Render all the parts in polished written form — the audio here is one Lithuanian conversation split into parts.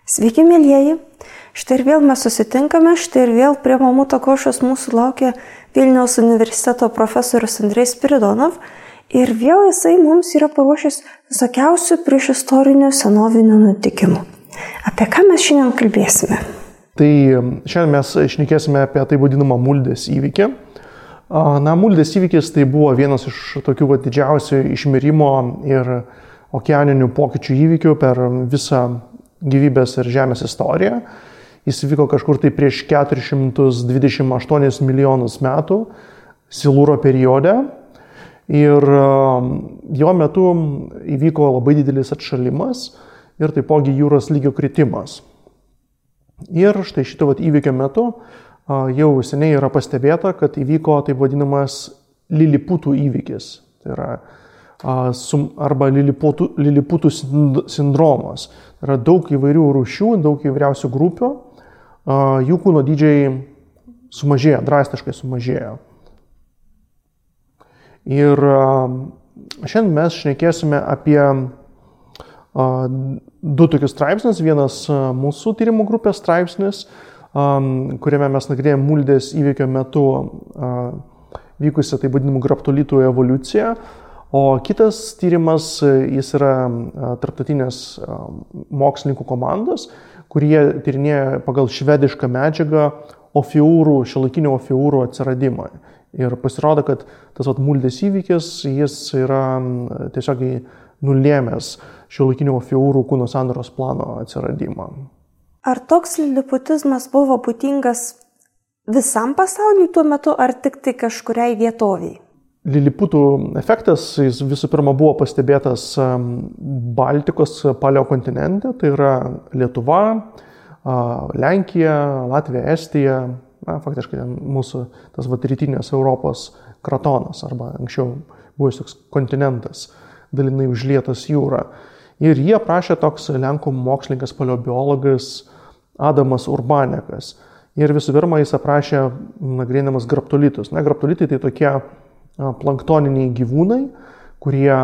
Sveiki, mėlyjeji. Štai ir vėl mes susitinkame, štai ir vėl prie Mamuto košės mūsų laukia Vilniaus universiteto profesorius Andrej Spiridonov ir vėl jisai mums yra paruošęs visokiausių priešistorinių senovinių nutikimų. Apie ką mes šiandien kalbėsime? Tai šiandien mes šnekėsime apie tai vadinamą Muldės įvykį. Muldės įvykis tai buvo vienas iš tokių didžiausių išmirimo ir okeaninių pokyčių įvykių per visą gyvybės ir žemės istoriją. Jis vyko kažkur tai prieš 428 milijonus metų Silūro periode ir jo metu įvyko labai didelis atšalimas ir taipogi jūros lygio kritimas. Ir štai šito įvykio metu jau seniai yra pastebėta, kad įvyko taip vadinamas liliputų įvykis. Tai yra arba liliputų sindromas. Tai yra daug įvairių rūšių, daug įvairiausių grupių. Jų kūno dydžiai sumažėjo, drastiškai sumažėjo. Ir šiandien mes šnekėsime apie du tokius straipsnius. Vienas mūsų tyrimų grupės straipsnis, kuriame mes nagrinėjame Muldės įvykio metu vykusią taip vadinamų graptolitų evoliuciją. O kitas tyrimas, jis yra tarptautinės mokslininkų komandos, kurie tyrinėja pagal švedišką medžiagą šiuolaikinių ofiūrų atsiradimą. Ir pasirodo, kad tas Muldės įvykis, jis yra tiesiog nulėmęs šiuolaikinių ofiūrų kūno sandaros plano atsiradimą. Ar toks liliputizmas buvo būdingas visam pasauliui tuo metu, ar tik tai kažkuriai vietoviai? Liliputų efektas jis visų pirma buvo pastebėtas Baltikos paleokontinente, tai yra Lietuva, Lenkija, Latvija, Estija, faktiškai mūsų tas rytinės Europos kratonas, arba anksčiau buvęs toks kontinentas, dalinai užlietas jūra. Ir jie aprašė toks lenkų mokslininkas paleobiologas Adamas Urbanekas. Ir visų pirma jis aprašė nagrinėdamas graptolitus. Graptolitai tai tokie planktoniniai gyvūnai, kurie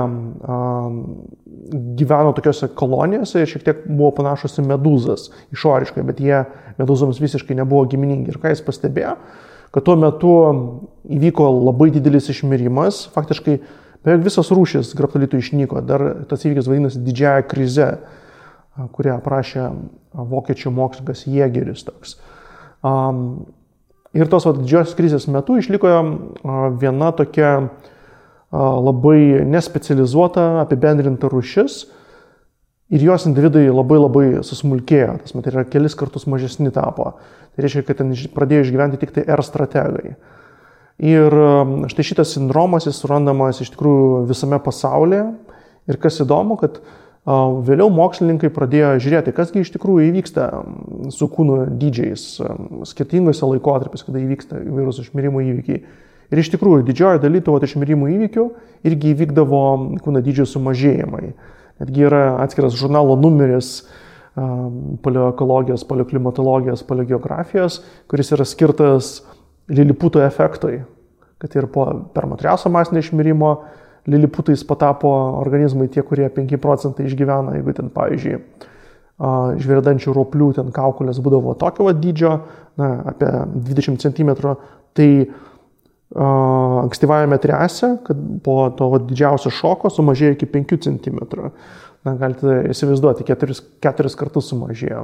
gyveno tokiose kolonijose ir šiek tiek buvo panašus į medūzas išoriškai, bet jie medūzoms visiškai nebuvo giminingi. Ir ką jis pastebėjo, kad tuo metu įvyko labai didelis išmirimas, faktiškai beveik visas rūšis graptolitų išnyko. Dar tas įvykis vadinasi didžiąja krize, kurią aprašė vokiečių mokslininkas Jėgeris toks. Ir tos didžiosios krizės metu išliko viena tokia labai nespecializuota, apibendrinta rūšis ir jos individai labai susmulkėjo, tas yra kelis kartus mažesni tapo. Tai reiškia, kad ten pradėjo išgyventi tik tai R strategai. Ir štai šitas sindromas jis surandamas iš tikrųjų visame pasaulyje ir kas įdomu, kad vėliau mokslininkai pradėjo žiūrėti, kasgi iš tikrųjų įvyksta su kūno dydžiais skirtingose laikotarpiuose, kada įvyksta įvairūs išmirimo įvykiai. Ir iš tikrųjų didžioji dalis tų išmirimo įvykių irgi įvykdavo kūno dydžio sumažėjimai. Netgi yra atskiras žurnalo numeris paleoekologijos, paleoklimatologijos, paleogeografijos, kuris yra skirtas liliputo efektui, kad ir po permatriaso masinio išmirimo liliputais patapo organizmai tie, kurie 5% išgyvena, jeigu ten, pavyzdžiui, žvėrdančių roplių ten kaukolės būdavo tokio dydžio, apie 20 cm, tai ankstyvajame triase, kad po to didžiausio šoko sumažėjo iki 5 cm. Galite įsivaizduoti, 4 kartus sumažėjo.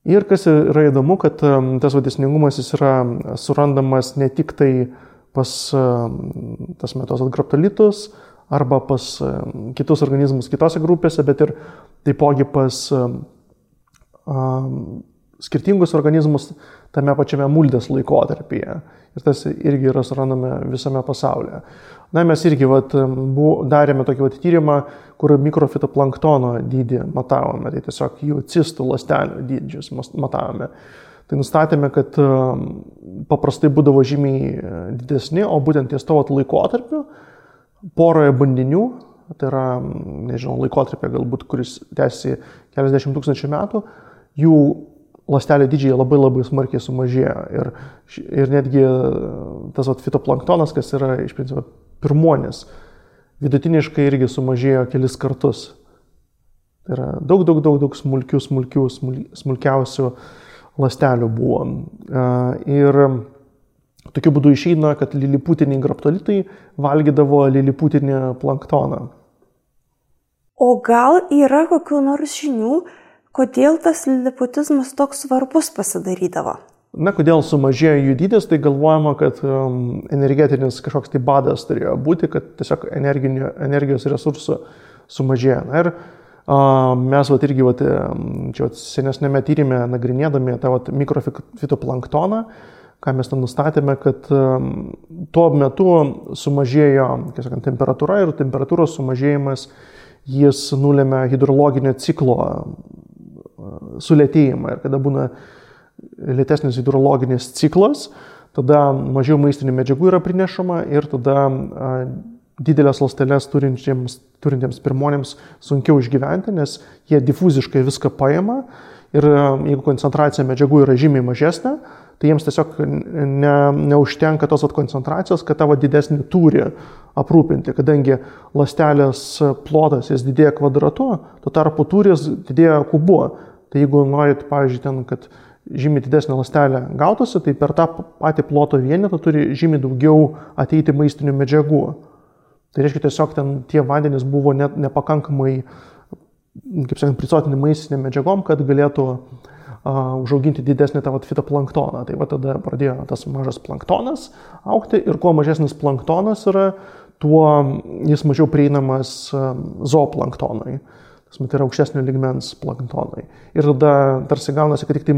Ir kas yra įdomu, kad tas dėsningumas jis yra surandamas ne tik tai pas tas metos graptolitus arba pas kitus organizmus kitose grupėse, bet ir taipogi pas skirtingus organizmus tame pačiame Muldės laikotarpyje. Ir tas irgi yra surandame visame pasaulyje. Mes irgi darėme tokį tyrimą, kur mikrofitoplanktono dydį matavome, tai tiesiog jų cistų ląstelių dydžius matavome. Tai nustatėme, kad paprastai būdavo žymiai didesni, o būtent ties to laikotarpiu poroje bandinių, tai yra, laikotarpė galbūt, kuris tęsiasi keliasdešimt tūkstančių metų, jų ląstelio dydžiai labai smarkiai sumažėjo. Ir netgi tas fitoplanktonas, kas yra iš principo pirmuonis vidutiniškai irgi sumažėjo kelis kartus. Tai yra daug smulkiausių ląstelių buvo. Ir tokiu būdu išeina, kad liliputiniai graptolitai valgydavo liliputinį planktoną. O gal yra kokių nors žinių, kodėl tas liliputizmas toks svarbus pasidarydavo? Na, kodėl sumažėjo jų dydis, tai galvojama, kad energetinis kažkoks tai badas turėjo būti, kad tiesiog energijos resursų sumažėjo. Na, ir mes irgi čia senesnėme tyrime nagrinėdami tą mikrofitoplanktoną, ką mes ten nustatėme, kad tuo metu sumažėjo temperatūra ir temperatūros sumažėjimas jis nulėmė hidrologinio ciklo sulėtėjimą. Ir kada būna lėtesnis hidrologinis ciklas, tada mažiau maistinių medžiagų yra prinešama ir tada didelės ląsteles turintiems pirmonėms sunkiau išgyventi, nes jie difuziškai viską paima ir jeigu koncentracija medžiagų yra žymiai mažesnė, tai jiems tiesiog neužtenka tos koncentracijos, kad tavo didesnį turi aprūpinti, kadangi ląstelės plotas jis didėja kvadratu, tuo tarpu tūris didėja kubu. Tai jeigu norit, pavyzdžiui, ten, kad žymiai didesnė ląstelė gautųsi, tai per tą patį ploto vienetą turi žymiai daugiau ateiti maistinių medžiagų. Tai reiškia, tiesiog ten tie vandenys buvo nepakankamai, kaip sakant, prisotinti maistinėm medžiagom, kad galėtų užauginti didesnį tą fitoplanktoną. Tai tada pradėjo tas mažas planktonas augti ir kuo mažesnis planktonas yra, tuo jis mažiau prieinamas zooplanktonui. Tai yra aukštesnio lygmens planktonai. Ir tada tarsi gaunasi, kad tik tai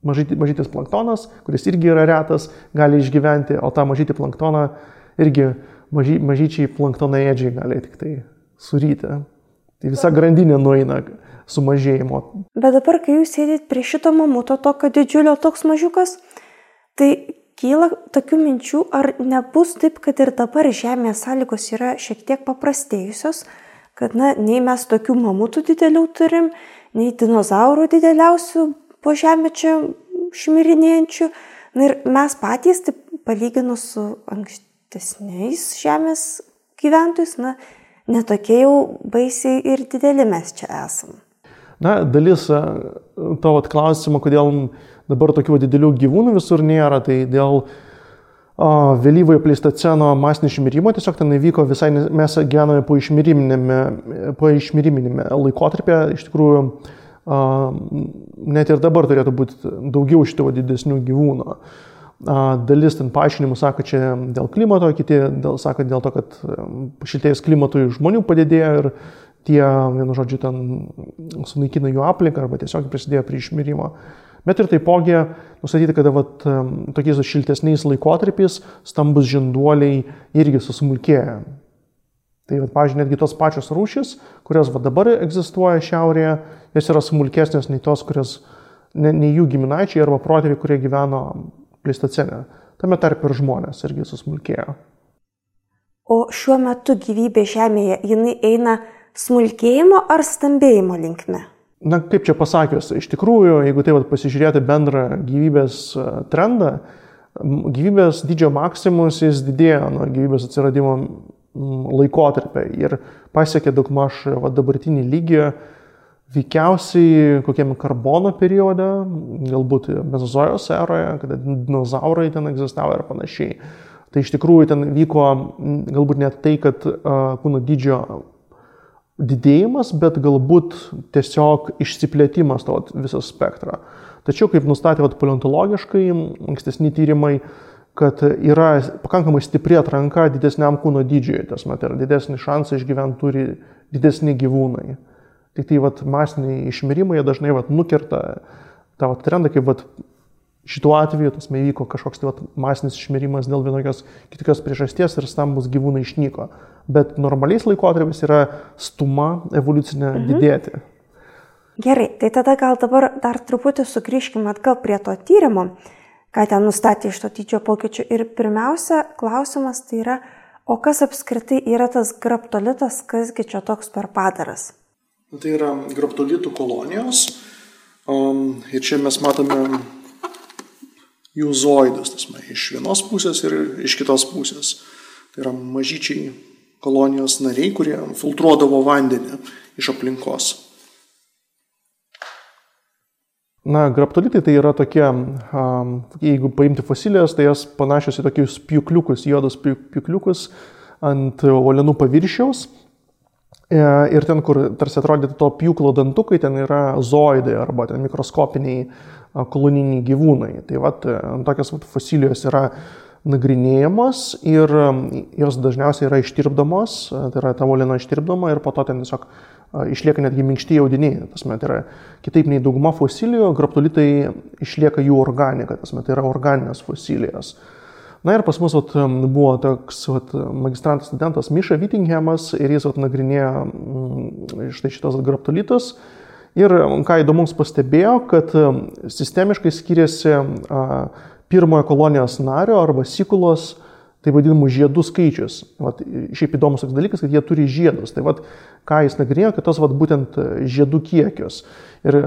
mažytis planktonas, kuris irgi yra retas, gali išgyventi, o tą mažytį planktoną irgi mažyčiai planktonaėdžiai gali tik tai suryti. Tai visa grandinė nueina sumažėjimo. Bet dabar, kai jūs sėdit prie šito mamuto, tokio didžiulio, toks mažiukas, tai kyla tokių minčių, ar nebus taip, kad ir dabar žemės sąlygos yra šiek tiek paprastėjusios, kad nei mes tokių mamutų didelių turim, nei dinozaurų dideliausių po žemę čia šmirinėjančių. Ir mes patys, taip palyginus su ankstesniais žemės gyventojais, netokie jau baisiai ir dideli mes čia esam. Na, dalis tavo klausimo, kodėl dabar tokių didelių gyvūnų visur nėra, tai dėl vėlyvojo pleistoceno masinio išmirimo, tiesiog ten įvyko visai, mes gyvename po išmiriminėme laikotarpyje, iš tikrųjų net ir dabar turėtų būti daugiau šitų didesnių gyvūnų. Dalis ten paaiškinimų sako čia dėl klimato, kiti sako dėl to, kad šiltėjus klimatui žmonių padidėjo ir tie, vienu žodžiu, ten sunaikina jų aplinką arba tiesiog prisidėjo prie išmirimo. Bet ir taipogi nustatyti, kad tokiais šiltesniais laikotarpiais stambus žinduoliai irgi susmulkėja. Tai, pavyzdžiui, netgi tos pačios rūšys, kurios dabar egzistuoja šiaurėje, jos yra smulkesnės nei tos, kurios nei jų giminaičiai arba protėviai, kurie gyveno pleistocene. Tame tarp ir žmonės irgi susmulkėjo. O šiuo metu gyvybė Žemėje, jinai eina smulkėjimo ar stambėjimo linkme? Na, kaip čia pasakius, iš tikrųjų, jeigu tai pasižiūrėti bendrą gyvybės trendą, gyvybės dydžio maksimus jis didėjo nuo gyvybės atsiradimo laikotarpio ir pasiekė daugmaž dabartinį lygį veikiausiai kokiam karbono periode, galbūt mezozojos eroje, kada dinozaurai ten egzistavo ir panašiai. Tai iš tikrųjų ten vyko galbūt net tai, kad kūno dydžio didėjimas, bet galbūt tiesiog išsiplėtimas to viso spektro. Tačiau, kaip nustatė paleontologiškai, ankstesni tyrimai, kad yra pakankamai stipri atranka didesniam kūno dydžiui, tas yra didesnį šansą išgyventi turi didesni gyvūnai. Tik tai masiniai išmirimai dažnai nukerta tą trendą, kaip šituo atveju įvyko kažkoks masinis išmirimas dėl vienokios kitokios priežasties ir stambus gyvūnai išnyko. Bet normaliais laikotarpiais yra stuma evoliucinė didėti. Gerai, tai tada gal dabar dar truputį sugrįžkime atgal prie to tyrimo, ką ten nustatė iš to dydžio pokyčių. Ir pirmiausia, klausimas tai yra, o kas apskritai yra tas graptolitas, kasgi čia toks per padaras? Tai yra graptolitų kolonijos. Ir čia mes matome jų zoidus, iš vienos pusės ir iš kitos pusės. Tai yra mažyčiai kolonijos nariai, kurie filtruodavo vandenį iš aplinkos. Na, graptolitai tai yra tokie, jeigu paimti fosilijas, tai jas panašios į tokius pjūkliukus, juodus pjūkliukus ant uolienų paviršiaus. Ir ten, kur tarsi atrodytų to pjūklo dantukai, ten yra zooidai arba ten mikroskopiniai koloniniai gyvūnai. Tai tokios fosilijos yra nagrinėjamos ir jos dažniausiai yra ištirpdamos, tai yra ta uoliena ištirpdama ir po to ten tiesiog išlieka netgi minkšti audiniai. Tai yra kitaip nei dauguma fosilijų, graptolitai išlieka jų organika, tai yra organinės fosilijos. Na ir pas mus buvo toks magistrantas studentas Miša Whittinghamas ir jis nagrinėjo štai šitos graptolitus. Ir ką įdomus pastebėjo, kad sistemiškai skiriasi pirmojo kolonijos nario arba sikulos, tai vadinamų žiedų skaičius. Šiaip įdomus toks dalykas, kad jie turi žiedus. Tai ką jis nagrinėjo, kad tos būtent žiedų kiekius. Ir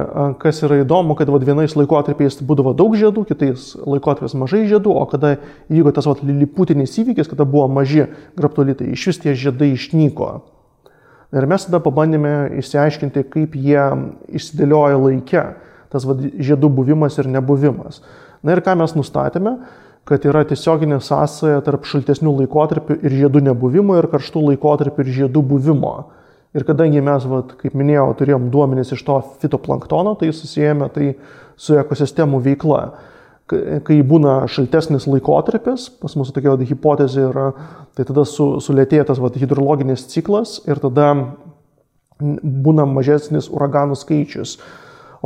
kas yra įdomu, kad vienais laikotarpiais būdavo daug žiedų, kitais laikotarpiais mažai žiedų, o kada įvyko tas liliputinis įvykis, kada buvo maži graptolitai, iš vis tie žiedai išnyko. Ir mes tada pabandėme išsiaiškinti, kaip jie išsidėlioja laike, tas žiedų buvimas ir nebuvimas. Na ir ką mes nustatėme, kad yra tiesioginė sąsaja tarp šaltesnių laikotarpių ir žiedų nebuvimo ir karštų laikotarpių ir žiedų buvimo. Ir kadangi mes, kaip minėjau, turėjom duomenis iš to fitoplanktono, tai susijęme tai su ekosistemų veikla. Kai būna šaltesnis laikotarpis, pas mūsų tokia hipotezė yra, tai tada sulėtėja tas hidrologinis ciklas ir tada būna mažesnis uraganų skaičius.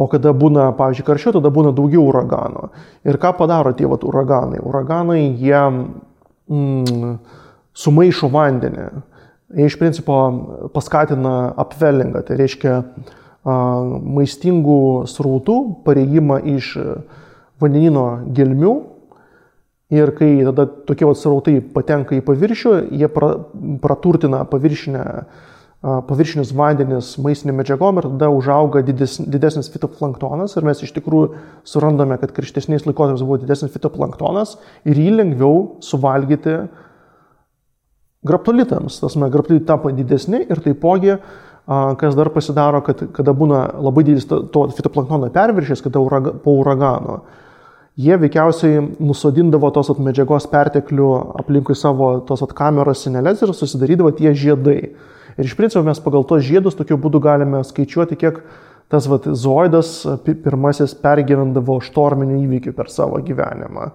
O kada būna, pavyzdžiui, karščiau, tada būna daugiau uraganų. Ir ką padaro tie uraganai? Uraganai, jie sumaišo vandenį. Jie iš principo paskatina upwellingą, tai reiškia maistingų srautų pareigimą iš vandenino gelmių. Ir kai tada tokie srautai patenka į paviršių, jie praturtina paviršinius vandenis maistinėm medžiagom ir tada užauga didesnis fitoplanktonas ir mes iš tikrųjų surandame, kad karštesniais laikotarpiais buvo didesnis fitoplanktonas ir jį lengviau suvalgyti graptolitams. Graptolitai tampa didesni ir taipogi, kas dar pasidaro, kad kada būna labai didelis to fitoplanktono perviršis, kada po uragano, jie veikiausiai nusodindavo tos medžiagos perteklių aplinkui savo tos kameros sineles ir susidarydavo tie žiedai. Ir iš principo mes pagal tos žiedus tokiu būdu galime skaičiuoti, kiek tas zooidas pirmasis pergyvendavo štorminių įvykių per savo gyvenimą.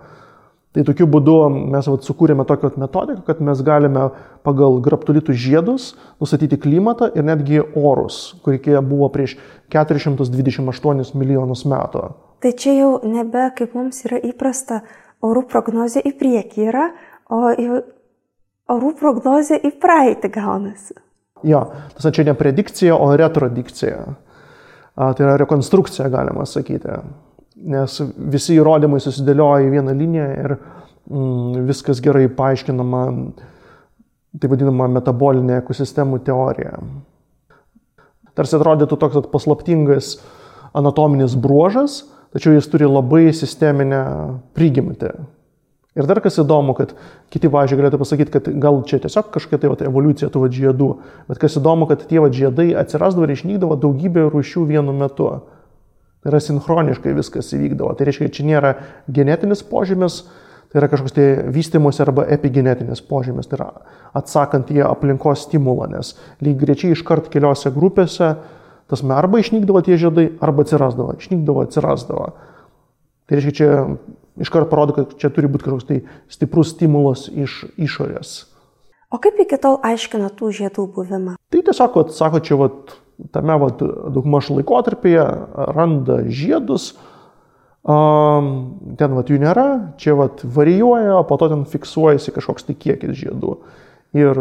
Tai tokiu būdu mes sukūrėme tokią metodiką, kad mes galime pagal graptolitų žiedus nustatyti klimatą ir netgi orus, kurie buvo prieš 428 milijonus metų. Tai čia jau nebe, kaip mums yra įprasta, orų prognozė į priekį yra, o orų prognozė į praeitį gaunasi. Jo, tas čia ne predikcija, o retrodikcija. Tai yra rekonstrukcija, galima sakyti. Nes visi įrodymai susidėlioja į vieną liniją ir viskas gerai paaiškinama, tai vadinama metabolinė ekosistemų teorija. Tarsi atrodytų toks paslaptingas anatominis bruožas, tačiau jis turi labai sisteminę prigimtį. Ir dar kas įdomu, kad kiti, pavyzdžiui, galėtų pasakyti, kad gal čia tiesiog kažkokia evoliucija tų žiedų, bet kas įdomu, kad tie žiedai atsirasdavo ir išnykdavo daugybė rūšių vienu metu. Tai yra sinchroniškai viskas įvykdavo. Tai reiškia, kad čia nėra genetinis požymis, tai yra kažkoks vystymosi arba epigenetinis požymis, tai yra atsakant į aplinkos stimulą, nes lyg greičiai iškart keliose grupėse arba išnykdavo tie žiedai, arba atsirasdavo, išnykdavo, atsirasdavo. Tai reiškia, čia iškart parodo, kad čia turi būti kažkoks stiprus stimulas iš išorės. O kaip iki tol aiškina tų žiedų buvimą? Tai tiesiog, sako, čia tame daugmaž laikotarpyje randa žiedus, ten jų nėra, čia varijuoja, o po to ten fiksuojasi kažkoks kiekis žiedų. Ir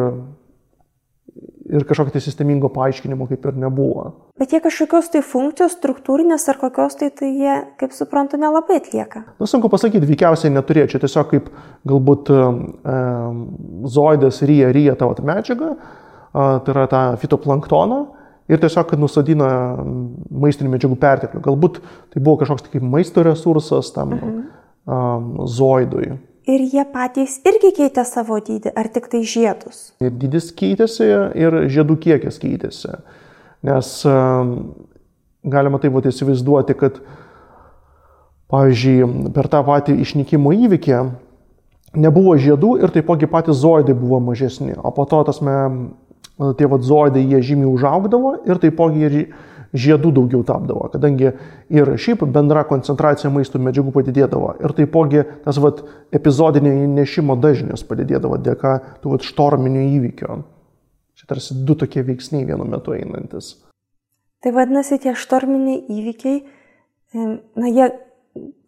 kažkokio sistemingo paaiškinimo kaip ir nebuvo. Bet jie kažkokios funkcijos struktūrinės ar kokios tai jie, kaip suprantu, nelabai atlieka? Sunku pasakyti, veikiausiai neturėjo. Čia tiesiog kaip galbūt zooidas ryja tą medžiagą, tai yra tą fitoplanktoną, ir tiesiog nusadina maistinių medžiagų perteklių. Galbūt tai buvo kažkoks kaip maisto resursas tam zooidui. Ir jie patys irgi keitė savo dydį, ar tik tai žiedus? Ir dydis keitėsi, ir žiedų kiekis keitėsi. Nes galima taip įsivaizduoti, kad, pavyzdžiui, per tą patį išnykimo įvykį nebuvo žiedų ir taipogi patys zoidai buvo mažesni. O po to tie zoidai jie žymiai užaugdavo ir taipogi ir žiedų daugiau tapdavo, kadangi ir šiaip bendra koncentracija maisto medžiagų padidėdavo ir taipogi tas epizodinio įnešimo dažnis padidėdavo dėka tų štorminių įvykių. Čia tarsi du tokie veiksniai vienu metu einantis. Tai vadinasi, tie štorminiai įvykiai, jie,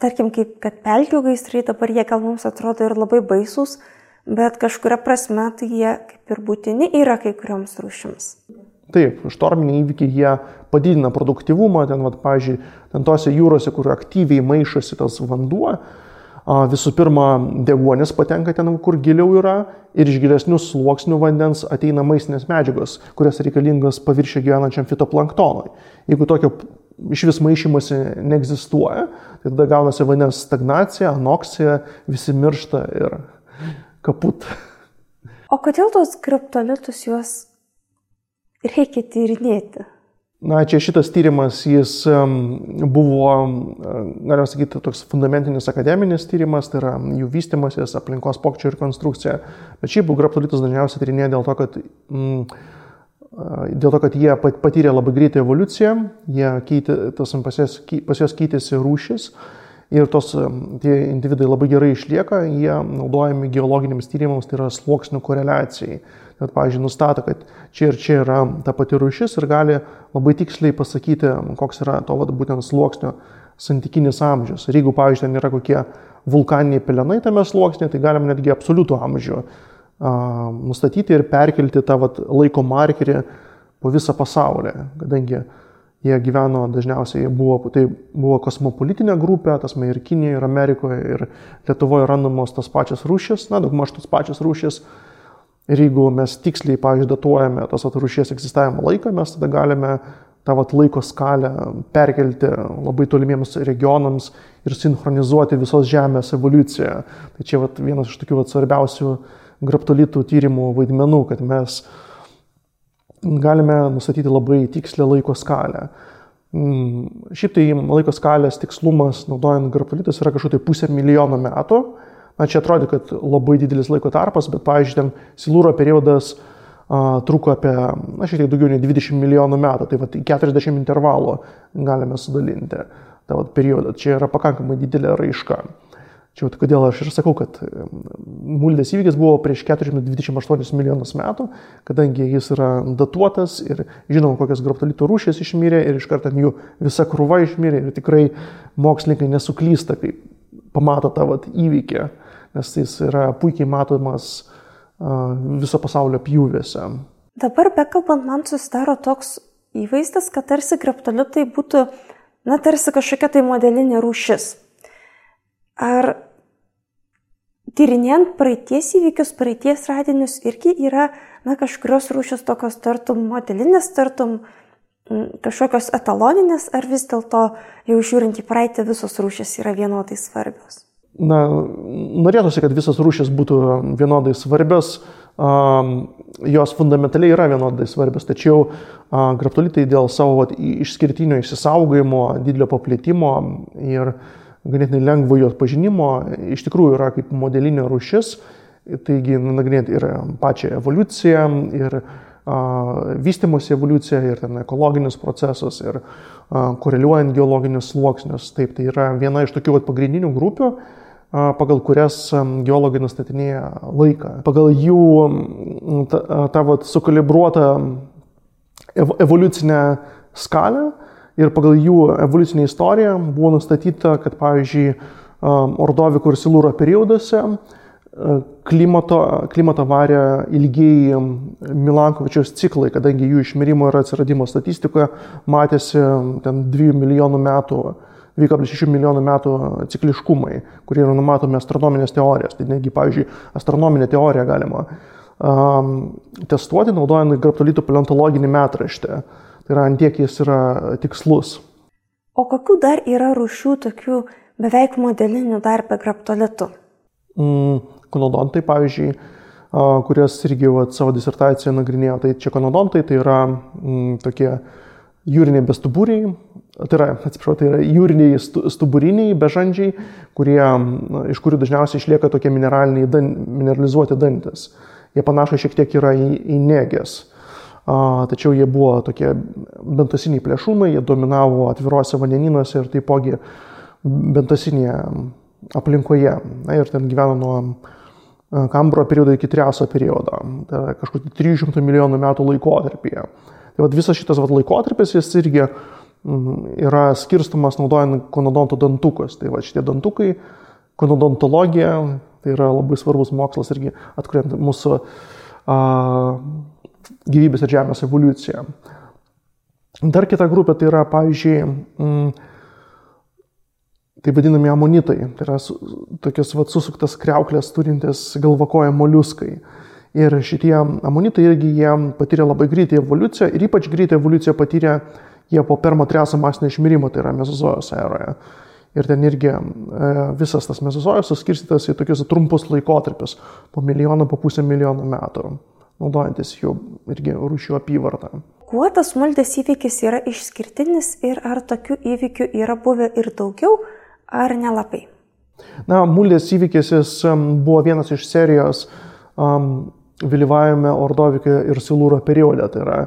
tarkim, kaip kad pelkių gaisrai, dabar jie gal mums atrodo ir labai baisus, bet kažkuria prasme tai jie kaip ir būtini yra kai kurioms rūšims. Taip, štorminiai įvykiai jie padidina produktyvumą, pavyzdžiui, tose jūrose, kur aktyviai maišosi tas vanduo, visų pirma, deguonis patenka ten, kur giliau yra, ir iš gilesnių sluoksnių vandens ateina maistinės medžiagos, kurias reikalingas paviršiuje gyvenančiam fitoplanktonui. Jeigu tokio iš vis maišymosi neegzistuoja, tai tada gaunasi vandens stagnacija, anoksija, visi miršta ir kaput. O kodėl tos kriptolitus juos reikia tyrinėti? Na, čia šitas tyrimas, jis buvo, galima sakyti, toks fundamentinis akademinis tyrimas, tai yra jų vystymasis, aplinkos pokyčių ir konstrukcija. Bet šiaip graptolitus dažniausiai tyrinėja dėl to, kad jie patyrė labai greitą evoliuciją, pas juos keitėsi rūšis ir tie individai labai gerai išlieka, jie naudojami geologiniams tyrimams, tai yra sluoksnių koreliacijai. Bet, pavyzdžiui, nustato, kad čia ir čia yra ta pati rūšis ir gali labai tiksliai pasakyti, koks yra to būtent sluoksnio santykinis amžius. Ir jeigu, pavyzdžiui, ten yra kokie vulkaniniai pelenai tame sluoksnėje, tai galim netgi absoliutų amžių nustatyti ir perkelti tą laiko markerį po visą pasaulį, kadangi jie gyveno dažniausiai, tai buvo kosmopolitinė grupė, tasme ir Kinijoje, ir Amerikoje, ir Lietuvoje randamos tas pačias rūšis, daugmaž tas pačias rūšis. Ir jeigu mes tiksliai, pavyzdžiui, datuojame tos rūšies egzistavimo laiką, mes tada galime tą laiko skalę perkelti labai tolimiems regionams ir sinchronizuoti visos Žemės evoliuciją. Tai čia vienas iš tokių svarbiausių graptolitų tyrimų vaidmenų, kad mes galime nustatyti labai tikslę laiko skalę. Šiaip tai laiko skalės tikslumas naudojant graptolitus yra kažkur 500 milijonų metų. Na, čia atrodo, kad labai didelis laiko tarpas, bet, pavyzdžiui, ten Silūro periodas truko apie, šiek tiek daugiau nei 20 milijonų metų, tai 40 intervalų galime sudalinti tą periodą. Čia yra pakankamai didelė raiška. Čia kodėl aš ir sakau, kad Muldės įvykis buvo prieš 428 milijonus metų, kadangi jis yra datuotas ir žinom, kokios graptolitų rūšės išmirė ir iš karto jų visa krūva išmirė ir tikrai mokslininkai nesuklysta, kai pamato tą įvykį, nes jis yra puikiai matomas viso pasaulio pjūviuose. Dabar bekalbant, man susidaro toks įvaizdis, kad tarsi graptolitai būtų, tarsi kažkokia tai modelinė rūšis. Ar tyrinėjant praeities įvykius, praeities radinius irgi yra, kažkurios rūšis tokios tartum modelinės, tartum kažkokios etaloninės, ar vis dėlto jau žiūrint į praeitį visos rūšis yra vienodai svarbios? Norėtųsi, kad visos rūšis būtų vienodai svarbios, jos fundamentaliai yra vienodai svarbios, tačiau graptolitai dėl savo išskirtinio išsisaugojimo, didelio paplitimo ir ganėtinai lengvo jos pažinimo iš tikrųjų yra kaip modelinė rūšis, taigi nagrinėti ir pačią evoliuciją, ir vystymosi evoliuciją, ir ten ekologinius procesus, ir koreliuojant geologinius sluoksnius. Taip, tai yra viena iš tokių pagrindinių grupių, pagal kurias geologai nustatinėja laiką. Pagal jų tą sukalibruotą evoliucinę skalę ir pagal jų evoliucinę istoriją buvo nustatyta, kad, pavyzdžiui, Ordoviko ir Silūro perioduose klimato varė ilgieji Milankovičiaus ciklai, kadangi jų išmirimo ir atsiradimo statistikoje matėsi ten 2,6 milijonų metų cikliškumai, kurie yra numatomi astronominės teorijos. Tai netgi, pavyzdžiui, astronominę teoriją galima testuoti, naudojant graptolitų paleontologinį metraštį. Tai yra, ant tiek jis yra tikslus. O kokių dar yra rūšių tokių beveik modelinių dar be graptolitų? konodontai, pavyzdžiui, kurias irgi savo disertacijoje nagrinėjo. Tai čia konodontai, tai yra tokie jūriniai bestuburiai, tai yra jūriniai stuburiniai bežandžiai, iš kurių dažniausiai išlieka tokie mineralizuoti dantis. Jie panašai šiek tiek yra į nėges. Tačiau jie buvo tokie bentasiniai plėšrūnai, jie dominavo atviruose vandenynuose ir taipogi bentasinėje aplinkoje. Ir ten gyveno nuo Kambro periodo iki Triaso periodo. Tai yra kažkur 300 milijonų metų laikotarpyje. Tai visas šitas laikotarpis jis irgi yra skirstumas naudojant konodonto dantukus. Tai šitie dantukai, konodontologija, tai yra labai svarbus mokslas irgi atkuriant mūsų gyvybės ir žemės evoliuciją. Dar kita grupė tai yra, pavyzdžiui, tai vadinami amonitai. Tai yra tokios susuktas kriauklės turintis galvakoje moliuskai. Ir šitie amonitai irgi jie patyrė labai greitą evoliuciją ir ypač greitą evoliuciją patyrė jie po Permo-Triaso masinio išmirimo, tai yra Mezozojos eroje. Ir ten irgi visas tas Mezozojus suskirstytas į tokius trumpus laikotarpius, po milijoną, po pusę milijono metų, naudojantis jų irgi rūšių apyvartą. Kuo tas Muldės įvykis yra išskirtinis ir ar tokių įvykių yra buvę ir daugiau, ar nelabai? Muldės įvykis jis buvo vienas iš serijos vėlyvajame Ordovike ir Silūro periode, tai yra,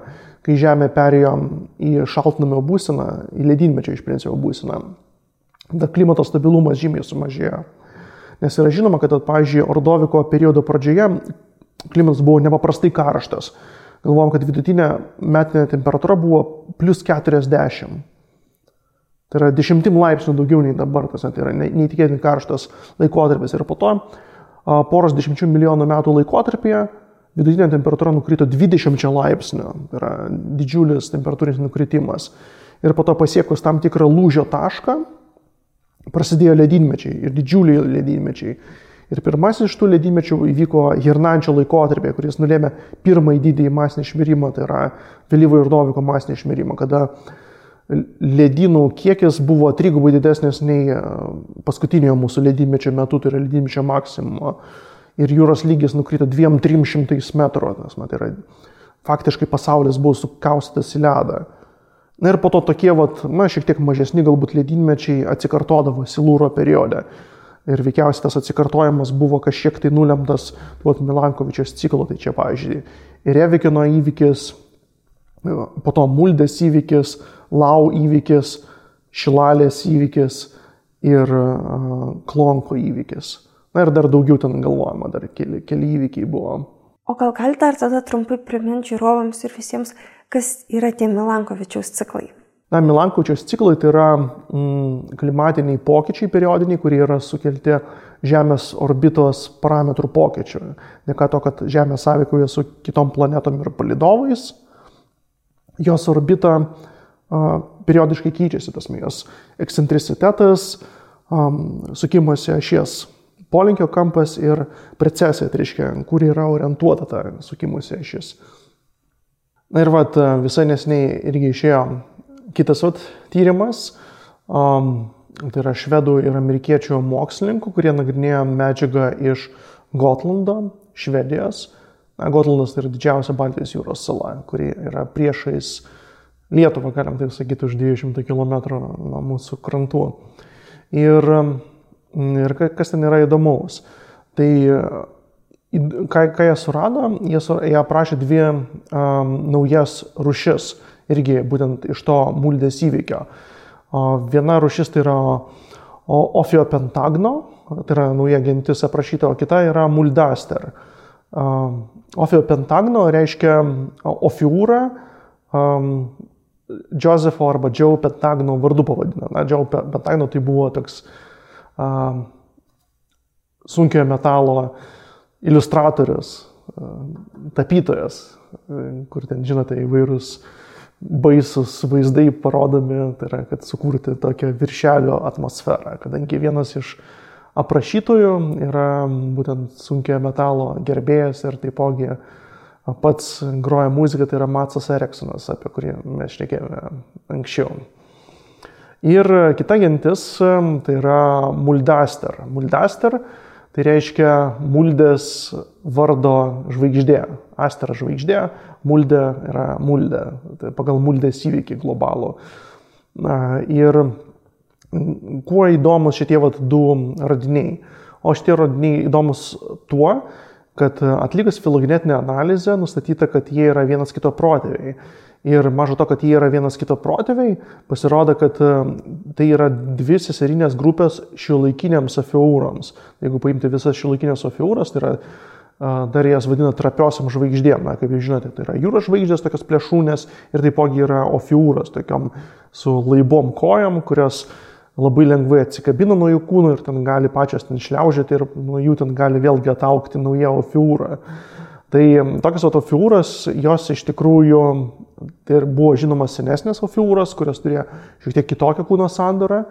kai Žemė perėjo į šaltnamio būseną, į ledynmečio iš principo būseną. Dar klimato stabilumas žymiai sumažėjo. Nes yra žinoma, kad, pavyzdžiui, Ordoviko periodo pradžioje klimatas buvo nepaprastai karštas. Galvojom, kad vidutinė metinė temperatūra buvo plus 40. Tai yra 10 laipsnių daugiau nei dabar, tai yra neįtikėtinai karštas laikotarpis. Ir po to poros 10 milijonų metų laikotarpyje vidutinė temperatūra nukrito 20 laipsnių. Tai yra didžiulis temperatūrinis nukritimas. Ir po to pasiekus tam tikrą lūžio tašką, prasidėjo ledynmečiai ir didžiuliai ledynmečiai. Ir pirmasis iš tų ledynmečių įvyko Hirnančio laikotarpyje, kuris nulėmė pirmąjį didįjį masinį išmirimą, tai yra vėlyvojo Ordoviko masinį išmirimą, kada ledynų kiekis buvo 3 didesnis nei paskutinio mūsų ledynmečio metu, tai yra ledynmečio maksimumo. Ir jūros lygis nukrito 200-300 metrų. Tai yra faktiškai pasaulis buvo sukaustytas į ledą. Na ir po to tokie, šiek tiek mažesni galbūt ledynmečiai atsikartodavo Silūro periode. Ir veikiausiai tas atsikartojimas buvo kažkiek tai nulemtas Milankovičiaus ciklo. Tai čia, pavyzdžiui, Revikino įvykis, po to Muldės įvykis, Lau įvykis, Šilalės įvykis ir Klonko įvykis. Na ir dar daugiau ten galvojama, dar keli įvykiai buvo. O gal galite dar tada trumpai priminti žiūrovams ir visiems, kas yra tie Milankovičiaus ciklai? Milankovičiaus ciklai tai yra klimatiniai pokyčiai periodiniai, kurie yra sukelti Žemės orbitos parametrų pokyčių. Dėka to, kad Žemė sąveikauja su kitom planetom ir palydovais, jos orbita periodiškai keičiasi, jos ekscentricitetas, sukimosi ašies polinkio kampas ir precesija, tai reiškia, kur yra orientuota ta sukimosi ašis. Na ir visai neseniai irgi išėjo kitas tyrimas, tai yra švedų ir amerikiečių mokslininkų, kurie nagrinėjo medžiagą iš Gotlando, Švedijos. Gotlandas tai yra didžiausia Baltijos jūros sala, kuri yra priešais Lietuvą, galim taip sakyti, už 200 km nuo mūsų krantų. Ir kas ten yra įdomaus? Tai ką jie surado? Jie aprašė 2 naujas rūšis, irgi būtent iš to Muldės įvykio. Viena rūšis tai yra Ophiopentagno, tai yra nauja gentis aprašyta, o kita yra Muldaster. Ophiopentagno reiškia Ophiūrą, Josepho arba Joe Pentagno vardu pavadina. Joe Pentagno tai buvo toks sunkiojo metalo iliustratorius, tapytojas, kur ten, žinote, įvairūs baisus vaizdai parodomi, tai yra, kad sukurti tokią viršelio atmosferą, kadangi vienas iš aprašytojų yra būtent sunkiojo metalo gerbėjas ir taipogi pats groja muziką, tai yra Matsas Eriksonas, apie kurį mes šnekėjome anksčiau. Ir kita gentis, tai yra Muldaster. Muldaster Tai reiškia muldės vardo žvaigždė. Astera žvaigždė, muldė yra muldė. Tai pagal muldės įvykį globalų. Ir kuo įdomus šitie du radiniai? O šitie radiniai įdomus tuo, kad atlikus filogenetinę analizę nustatyta, kad jie yra vienas kito protėviai. Ir mažo to, kad jie yra vienas kito protėviai, pasirodo, kad tai yra dvi seserinės grupės šiuolaikiniams Ophiurams. Jeigu paimti visas šiuolaikinės Ophiuras, tai yra, dar jas vadina trapiosiam žvaigždėm. Na, kaip jūs žinote, tai yra jūros žvaigždės, tokios plėšūnės, ir taipogi yra Ophiuras, tokiam su laibom kojam, kurios labai lengvai atsikabina nuo jų kūnų ir ten gali pačios ten šliaužėti ir nuo jų ten gali vėlgi ataukti nauja Ophiura. Tai tokios Ophiuras, jos iš tikrųjų tai buvo žinomas senesnės Ophiuras, kurios turėjo šiek tiek kitokią kūno sandarą.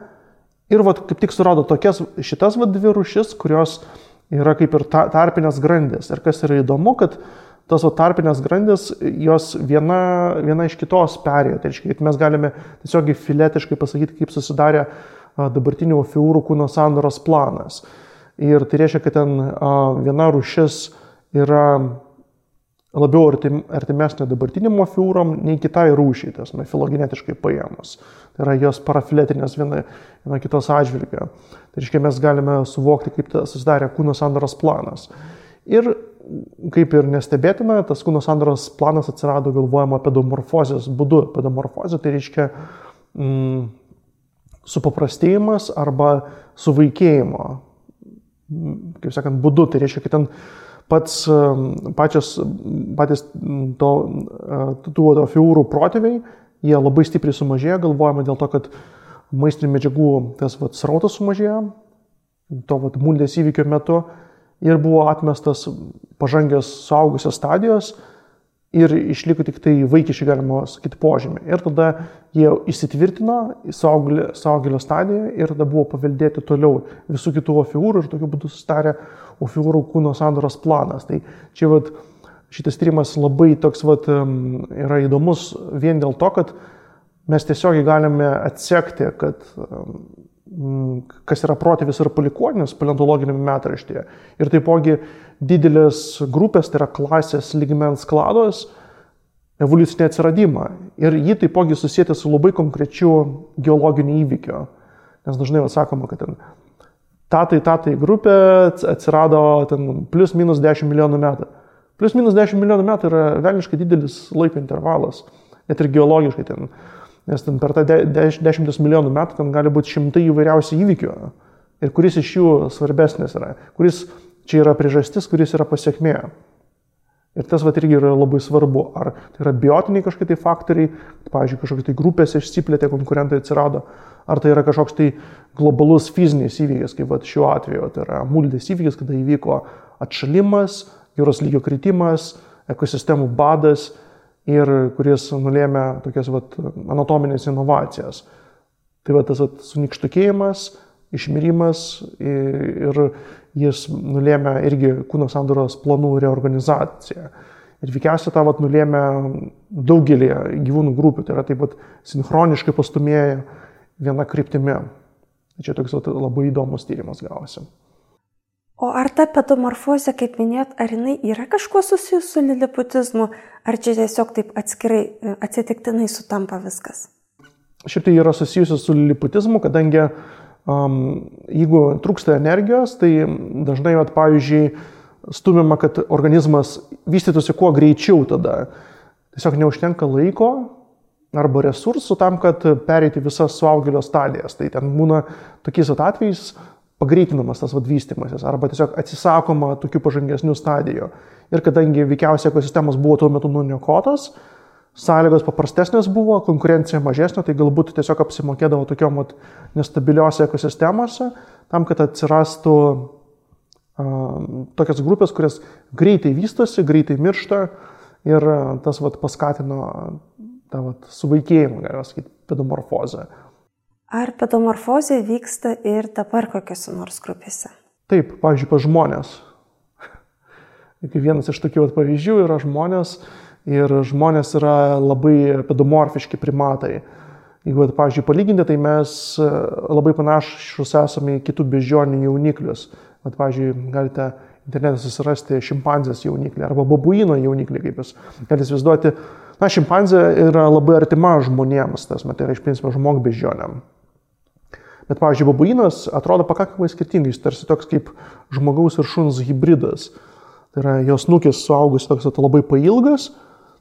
Ir kaip tik surado šitas dvi rūšis, kurios yra kaip ir tarpinės grandys. Ir kas yra įdomu, kad tos tarpinės grandys, jos viena iš kitos perėjo. Tai reiškia, kad mes galime tiesiog filetiškai pasakyti, kaip susidarė dabartinių Ophiurų kūno sandaros planas. Ir tai reiškia, kad ten viena rūšis yra labiau artimesnė dabartiniam Ophiuram nei kitai rūšiai, tas filogenetiškai paėmus. Tai yra jos parafiletinės viena kitos atžvilgio. Tai reiškia, mes galime suvokti, kaip susidarė kūno sandaros planas. Ir kaip ir nestebėtina, tas kūno sandaros planas atsirado galvojama pedomorfozės būdu. Pedomorfozė tai reiškia supaprastėjimas arba suvaikėjimo, kaip sakant, būdu. Tai reiškia, kad ten patys tų Ophiurų protėviai, jie labai stipriai sumažėjo, galvojama dėl to, kad maistinių medžiagų tas srautas sumažėjo, to muldės įvykio metu, ir buvo atmestas pažangęs suaugusios stadijos ir išliko tik tai vaikiškai, galima sakyti, požymį. Ir tada jie įsitvirtino į suaugėlio stadiją ir tada buvo paveldėti toliau visų kitų Ophiurų ir tokiu būdu susidarė Ophiurų kūno sandaros planas. Tai čia šitas tyrimas labai toks yra įdomus vien dėl to, kad mes tiesiogiai galime atsekti, kas yra protėvis ir palikuonis paleontologiniame metraštyje. Ir taipogi didelės grupės, tai yra klasės lygmens klados evoliucinį atsiradimą. Ir jį taipogi susijęti su labai konkrečiu geologiniu įvykiu. Nes dažnai sakoma, kad ten tatai grupė atsirado ten plus minus 10 milijonų metų. Plus minus 10 milijonų metų yra velniškai didelis laiko intervalas, net ir geologiškai ten. Nes ten per tą 10 milijonų metų ten gali būti šimtai įvairiausių įvykių. Ir kuris iš jų svarbesnis yra. Kuris čia yra priežastis, kuris yra pasiekmė. Ir tas irgi yra labai svarbu. Ar tai yra biotiniai kažkokie tai faktoriai, pavyzdžiui, kažkokie tai grupės išsiplėtė, konkurentai atsirado. Ar tai yra kažkoks tai globalus fizinis įvykis, kaip šiuo atveju. Tai yra muldės įvykis, kada įvyko atšalimas, jūros lygio kritimas, ekosistemų badas, ir kuris nulėmė tokias anatominės inovacijas. Tai tas sunikštukėjimas, išmirimas ir jis nulėmė irgi kūno sandaros planų reorganizaciją. Ir veikiausiai tą nulėmė daugelį gyvūnų grupių, tai yra taip sinchroniškai pastumėję viena kryptimi. Čia toks labai įdomus tyrimas gavosi. O ar ta pedomorfozė, kaip minėjot, ar jinai yra kažkuo susijusi su liliputizmu, ar čia tiesiog taip atskirai, atsitiktinai sutampa viskas? Šiaip tai yra susijusi su liliputizmu, kadangi jeigu trūksta energijos, tai dažnai, pavyzdžiui, stumiama, kad organizmas vystytųsi kuo greičiau tada. Tiesiog neužtenka laiko arba resursų tam, kad pereiti visas suaugėlio stadijas. Tai ten būna tokiais atvejais pagreitinamas tas vystymasis arba tiesiog atsisakoma tokių pažangesnių stadijų. Ir kadangi veikiausiai ekosistemos buvo tuo metu nuniokotos, sąlygos paprastesnės buvo, konkurencija mažesnė, tai galbūt tiesiog apsimokėdavo tokiom nestabiliuose ekosistemose, tam, kad atsirastų tokias grupės, kurias greitai vystosi, greitai miršta ir tas paskatino tą suvaikėjimą, galima sakyti, pedomorfozę. Ar pedomorfozė vyksta ir dabar kokiose nors grupėse? Taip, pavyzdžiui, pas žmonės. Vienas iš tokių pavyzdžių yra žmonės ir žmonės yra labai pedomorfiški primatai. Jeigu, pavyzdžiui, palyginti, tai mes labai panašus esame į kitų beždžionių jauniklius. Pavyzdžiui, galite internete susirasti šimpanzės jauniklį arba babuino jauniklį, kaip jūs galite įsivaizduoti. Šimpanzė yra labai artima žmonėms, tai yra iš principo žmogbeždžionėm. Bet, pavyzdžiui, babuinas atrodo pakankamai skirtingai, jis tarsi toks kaip žmogaus ir šuns hybridas. Tai yra jos snukis suaugus toks labai pailgas,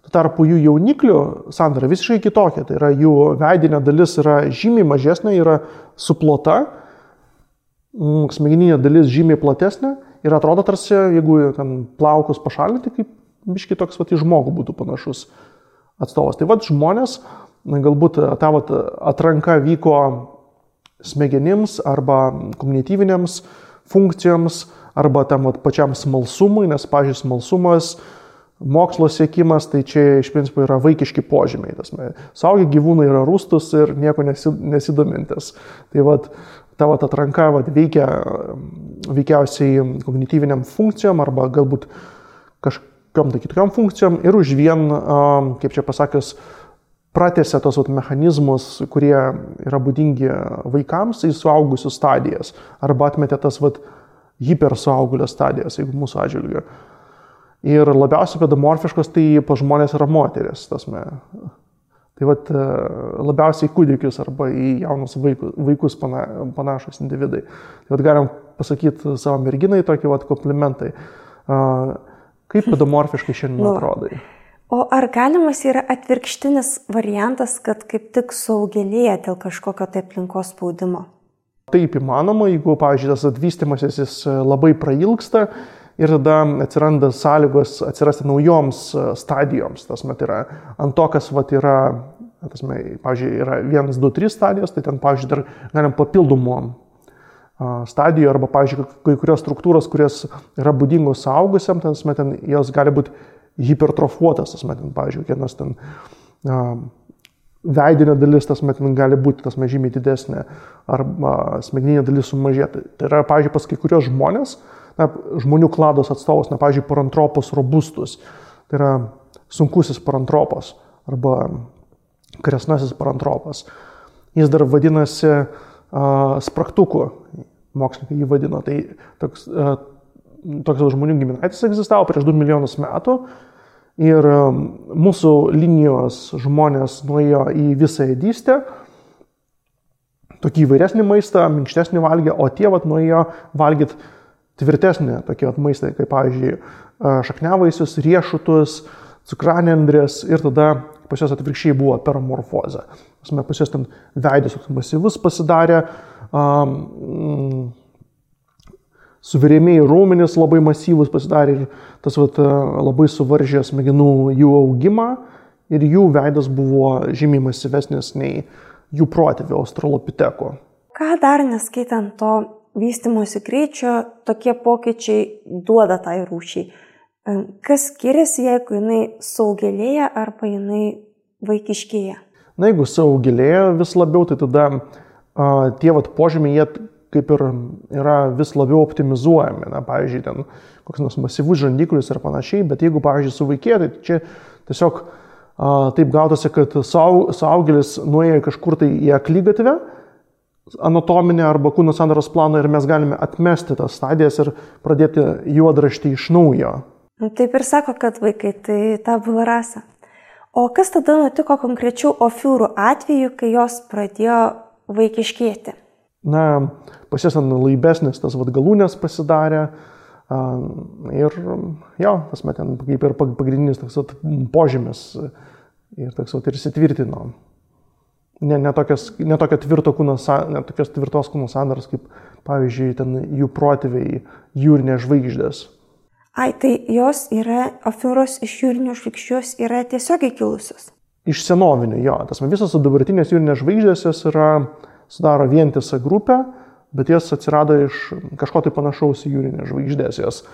tuo tarpu jų jauniklių sandara visiškai kitokia. Tai yra jų veidinė dalis yra žymiai mažesnė, yra suplota, smegeninė dalis žymiai platesnė ir atrodo tarsi, jeigu ten plaukus pašalinti, kaip biškai toks į žmogų būtų panašus atstovas. Tai žmonės, galbūt ta atranka vyko smegenims arba kognityvinėms funkcijoms arba tam pačiam smalsumui, nes, pavyzdžiui, smalsumas, mokslo siekimas, tai čia iš principo yra vaikiški požymiai. Suaugę gyvūnai yra rūstus ir nieko nesidomintis. Tai ta atranka veikiausiai kognityviniam funkcijom arba galbūt kažkokiam tai kitokiam funkcijom ir už vien, kaip čia pasakius, pratęsia tos mechanizmus, kurie yra būdingi vaikams į suaugusių stadijas arba atmetė tas hipersuaugulio stadijas, jeigu mūsų atžvilgiu. Ir labiausiai pedomorfiškos tai pas žmonės yra moteris. Tai labiausiai kūdikius arba į jaunus vaikus panašus individai. Tai galim pasakyti savo merginai tokį komplimentai. Kaip pedomorfiškai šiandien atrodai? O ar galimas yra atvirkštinis variantas, kad kaip tik suaugėlėja dėl kažkokio tai aplinkos spaudimo? Taip įmanoma, jeigu, pavyzdžiui, tas atvystymasis jis labai prailgsta ir tada atsiranda sąlygos atsirasti naujoms stadijoms. Yra ant to, kas yra, pavyzdžiui, yra 1, 2, 3 stadijos, tai ten, pavyzdžiui, dar galim papildomų stadijų arba, pavyzdžiui, kai kurios struktūros, kurios yra būdingos suaugusiam, ten jos gali būti hipertrofuotas, pavyzdžiui, vienas ten veidinė dalis, gali būti žymiai didesnė arba smegeninė dalis sumažėti. Tai yra, pavyzdžiui, pas kai kurios žmonės, žmonių klados atstovas, pavyzdžiui, parantropos robustus, tai yra sunkusis parantropas arba kresnasis parantropas. Jis dar vadinasi spragtuku, mokslininkai jį vadino. Tai toks žmonių giminaitis egzistavo prieš 2 milijonus metų ir mūsų linijos žmonės nuėjo į visą ėdystę, tokį įvairesnį maistą, minkštesnį valgė, o tie nuėjo valgyti tvirtesnį tokį maistą, kaip, pavyzdžiui, šakniavaisius, riešutus, cukranendrės ir tada pas juos atvirkščiai buvo peramorfozė. Pas juos ten veidas masyvus pasidarė, suvirėmėjai raumenys labai masyvus pasidarė ir tas labai suvaržė smegenų jų augimą ir jų veidas buvo žymiai masyvesnis nei jų protėvių australopiteko. Ką dar neskaitant to vystymosi greičio, tokie pokyčiai duoda tai rūšiai? Kas skiriasi, jeigu jinai suaugėlėja arba jinai vaikiškėja? Na, jeigu suaugėlėja vis labiau, tai tada tie požymiai jie kaip ir yra vis labiau optimizuojami. Na, pavyzdžiui, ten koks nors masyvus žandiklis ir panašiai, bet jeigu, pavyzdžiui, suvaikėja, tai čia tiesiog taip gautasi, kad suaugėlis nuėjo kažkur tai į akligatvę anatominę arba kūno sandaros planą ir mes galime atmesti tas stadijas ir pradėti juodraštį iš naujo. Taip ir sako, kad vaikai tai tabula rasa. O kas tada nutiko konkrečių ofiūrų atveju, kai jos pradėjo vaikiškėti? Na, pas jas laibesnis tas galūnės pasidarė ir jo, ten kaip ir pagrindinis toks požymis ir toks ir įsitvirtino. Ne tokios tvirtos kūno sandaros, kaip, pavyzdžiui, ten jų protėviai jūrinės žvaigždės. Tai jos yra, ofiūros iš jūrinių žvaigždžių yra tiesiogiai kilusios? Iš senovinių, jo. Visos dabartinės jūrinės žvaigždės jos sudaro vientisą grupę, bet jos atsirado iš kažko tai panašaus į jūrinės žvaigždės. Jos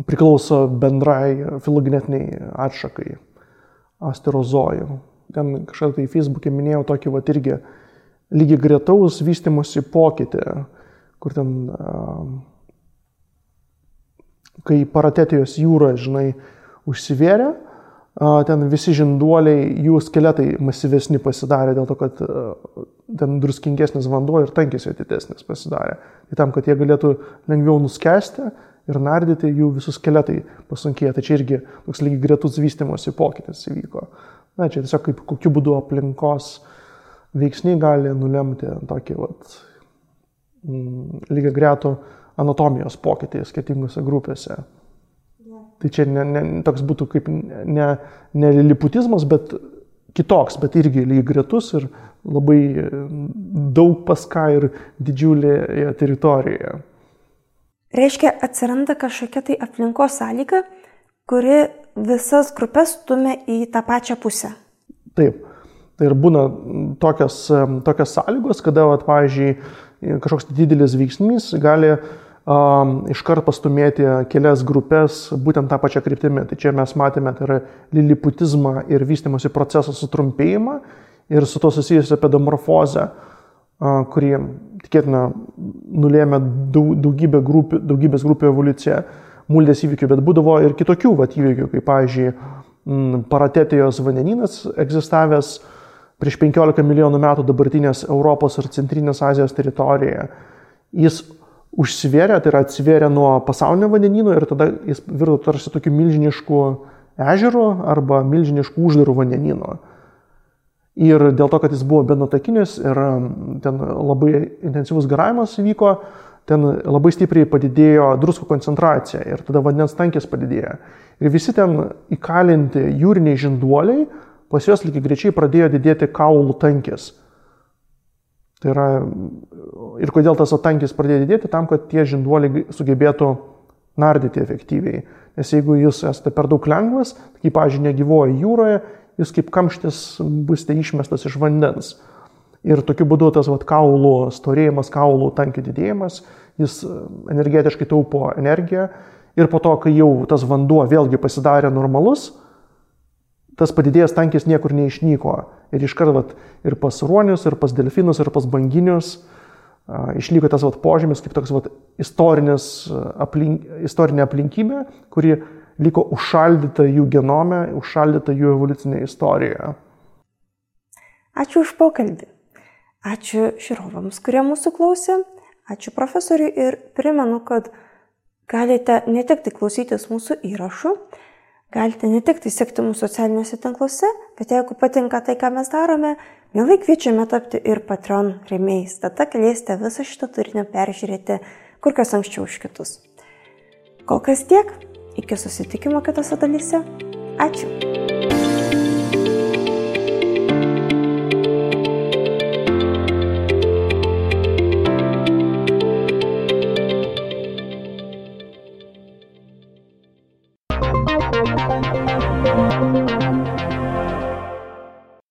priklauso bendrai filogenetiniai atšakai, asterozojų. Ten kažką tai Facebook'e minėjau tokį irgi lygiai gretaus vystymosi pokytį, kur ten kai Paratetijos jūra, užsivėrė, ten visi žinduoliai, jų skeletai masyvesni pasidarė dėl to, kad ten druskingesnis vanduo ir tankis jo didesnis pasidarė. Tai tam, kad jie galėtų lengviau nuskesti ir nardyti, jų visus skeletai pasunkėjo. Tai čia irgi toks lygiai gretus vystymosi pokytis įvyko. Na, čia tiesiog kaip kokiu būdu aplinkos veiksniai gali nulemti tokį lygiai gretų anatomijos pokytį skirtingose grupėse. Tai čia toks būtų kaip ne liliputizmas, bet kitoks, bet irgi lygiai gretus ir labai daug pas ką ir didžiulėje teritorijoje. Reiškia, atsiranda kažkokia tai aplinkos sąlyga, kuri visas grupės stumia į tą pačią pusę. Taip. Tai ir būna tokios sąlygos, kada, pavyzdžiui, kažkoks didelis veiksnys gali iškart pastumėti kelias grupės būtent tą pačią kryptimį. Tai čia mes matėme, tai yra liliputizmą ir vystymosi proceso sutrumpėjimą ir su to susijusią pedomorfozę, kuri tikėtina nulėmė daugybės grupių evoliuciją muldės įvykių, bet būdavo ir kitokių įvykių, kaip, pavyzdžiui, Paratetijos vandenynas egzistavęs prieš 15 milijonų metų dabartinės Europos ir Centrinės Azijos teritorijoje. Jis užsivėrė, tai yra atsivėrė nuo pasaulinio vandenyno ir tada jis virto tarsi tokiu milžinišku ežeru arba milžinišku uždaru vandenynu. Ir dėl to, kad jis buvo benutakinis ir ten labai intensyvus garavimas įvyko, ten labai stipriai padidėjo druskų koncentracija ir tada vandens tankis padidėjo. Ir visi ten įkalinti jūriniai žinduoliai, pas juos lygiai greičiai pradėjo didėti kaulų tankis. Tai yra, ir kodėl tas tankis pradėjo didėti, tam, kad tie žinduoliai sugebėtų nardyti efektyviai. Nes jeigu jūs esate per daug lengvas, kaip, pavyzdžiui, negyvoja jūroje, jūs kaip kamštis būsite išmestas iš vandens. Ir tokiu būdu tas kaulų storėjimas, kaulų tankių didėjimas, jis energetiškai taupo energiją. Ir po to, kai jau tas vanduo vėlgi pasidarė normalus, tas padidėjęs tankis niekur neišnyko. Ir iškart ir pas ruonius, ir pas delfinus, ir pas banginius išliko tas požymis kaip toks istorinė aplinkybė, kuri liko užšaldyta jų genome, užšaldyta jų evoliucinėje istorijoje. Ačiū už pokalbį. Ačiū žiūrovams, kurie mūsų klausė. Ačiū profesoriui ir primenu, kad galite ne tik tai klausytis mūsų įrašų, galite ne tik tai sekti mūsų socialiniuose tinkluose, bet jeigu patinka tai, ką mes darome, mielai kviečiame tapti ir Patreon rėmėjais. Tada galėsite visą šitą turinį peržiūrėti kur kas anksčiau už kitus. Kol kas tiek, iki susitikimo kitose dalyse. Ačiū.